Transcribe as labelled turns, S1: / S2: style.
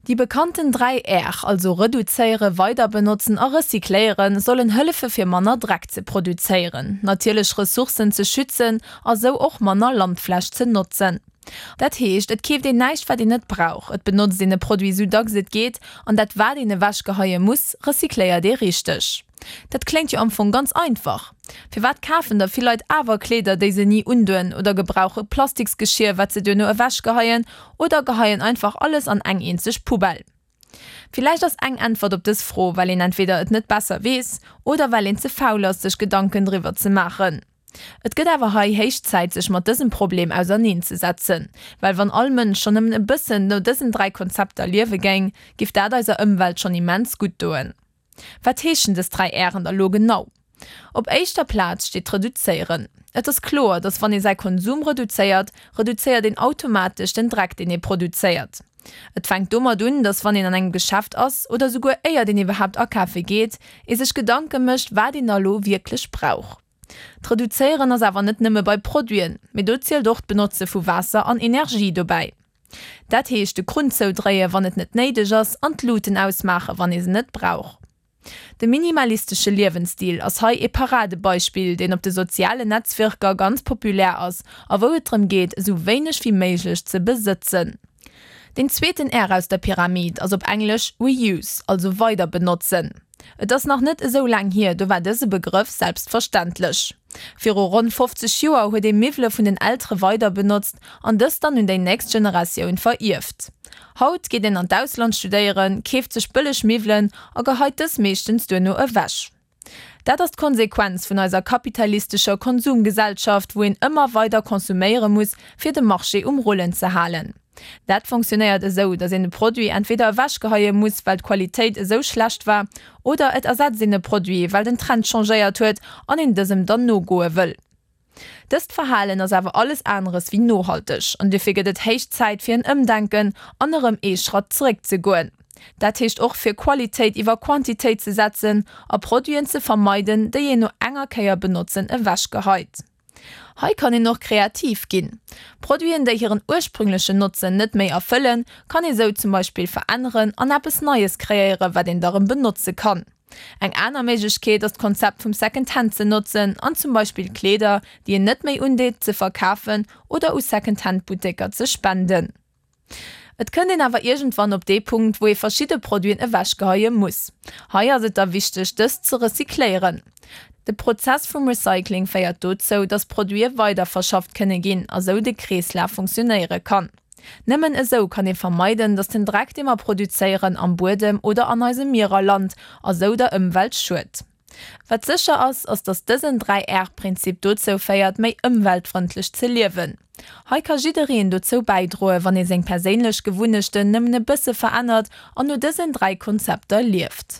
S1: Déi bekannten 3 R, also reduzéieren, weiderbenotzen a recycléieren, sollen hëllefe fir manner Dreck ze produzéieren, natierlech Ressourcen ze schützen a sou och manner Landfläch ze notzen. Dat heescht, et keeft een näischt wat een net brauch, et benotzt een e Produit sou dacks et geet an dat wat een ewechgeheie muss, recycléiert ee richteg. Dat kléngt jo am Fong ganz einfach. Firwat kafen da vill Leit awer Kleeder, déi se ni undoen oder gebrauche Plastiksgeschier, wat se duerno ewechgeheien oder geheien einfach alles an eng eenzeg Poubelle? Villäicht ass eng Äntwert op dës Fro, well een entweder et net besser weess oder well een ze faul ass, sech Gedanken driwwer ze maachen. Et gëtt awer hei héich Zäit sech mat dësem Problem auserneen ze setzen, well wann all Mënsch schonn nëmmen e bëssen no dësen 3 Konzepter liewe géing, giff dat eiser Ëmwelt schonn immens gutt doen. Wat heeschen dës 3 R'en da lo genau? Op éischter Plaz steet d'Reduzéieren. Et ass kloer, dass wann ee säi Konsum reduzéiert, reduzéiert een automatesch den Dreck deen ee produzéiert. Et fänkt domat un, dass wann een an engem Geschäft ass, oder souguer éiert een iwwerhaapt akafe geet, ee sech Gedanke mécht wat een da lo wierklech brauch. D'Reduzéieren ass awer net nëmme bei Produiten, mee do zielt och d'Benotze vu Waasser an Energie dobäi. Dat heescht de Krunn zoudréie wann et net néideg ass an d'Luuten ausmaache wann ee se net brauch. De minimalistesche Liewensstil ass hei ee Paradebeispill, deen op de sozialen Netzwierker ganz populär ass a wou et drëm geet esou wéineg wéi méiglech ze besëtzen. Deen zweeten R aus der Pyramid ass op Englesch Reuse, also weiderbenotzen. Et ass nach net esou laang hier, do war dëse Begrëff selbstverständlech. Viru ronn 50 Joer huet ee Miwwele vun den Eltere weiderbenotzt an dës dann un déi nächst Generatioun verierft. Haut geet een an d'Ausland studéieren, keeft sech bëlleg Miwwelen a geheit dës meeschtens duerno ewech. Dat ass d'Konsequenz vun eiser kapitalistescher Konsumgesellschaft, wou een ëmmer weider konsuméiere muss, fir de Marché um Rullen ze halen. Dat fonctionnéiert esou, datt een e Produit entweder ewechgeheie muss, well d'Qualitéit esou schlecht war, oder et ersetzt een e Produit, well den Trend changéiert huet an een dësem dann nogoe wëll. Dëst Verhalen ass awer alles aneres wéi nohalteg an dofir gëtt et héich Zäit fir en Ëmdenken an erëm ee Schratt zeréck ze goen. Dat heescht och fir Qualitéit iwwer Quantitéit ze setzen a Produiten ze vermeiden, déi een no enger Kéier benotzen ewechgeheit. Hei kann een och kreativ ginn. Produiten, déi hiren ursprünglechen Notzen net méi erfëllen, kann ee sou zum Beispill veränneren an eppes Neies kreéiere wat een da rëm benotze kann. Eng aner Méiglechkeet ass d'Konzept vum Second Hand ze notzen an zum Beispill Kleeder, déi een net méi undeet, ze verkafen oder u Second Hand Butteker ze spenden. Et kënnt een awer iergendwann op dee Punkt, wou ee verschidde Produiten ewechgeheie muss. Hei ass et da wichteg, dës ze recycléieren. De Prozess vum Recycling féiert dozou, dass Produite weiderverschafft kënne ginn a sou de Kreeslaf funktionéiere kann. Nëmmen esou kann ee vermeiden, dass den Dreck, dee mer produzéieren, am Buedem oder an eise Mierer lant a sou der Ëmwelt schued. Wat sécher ass, ass dass dësen 3 R-Prinzip dozou féiert, méi ëmweltfrëndlech ze liewen. Hei ka jiddereen dozou bäidroe wann ee seng perséinlech Gewunnechten nëmmen e bësse verännert an no dësen 3 Konzepter lieft.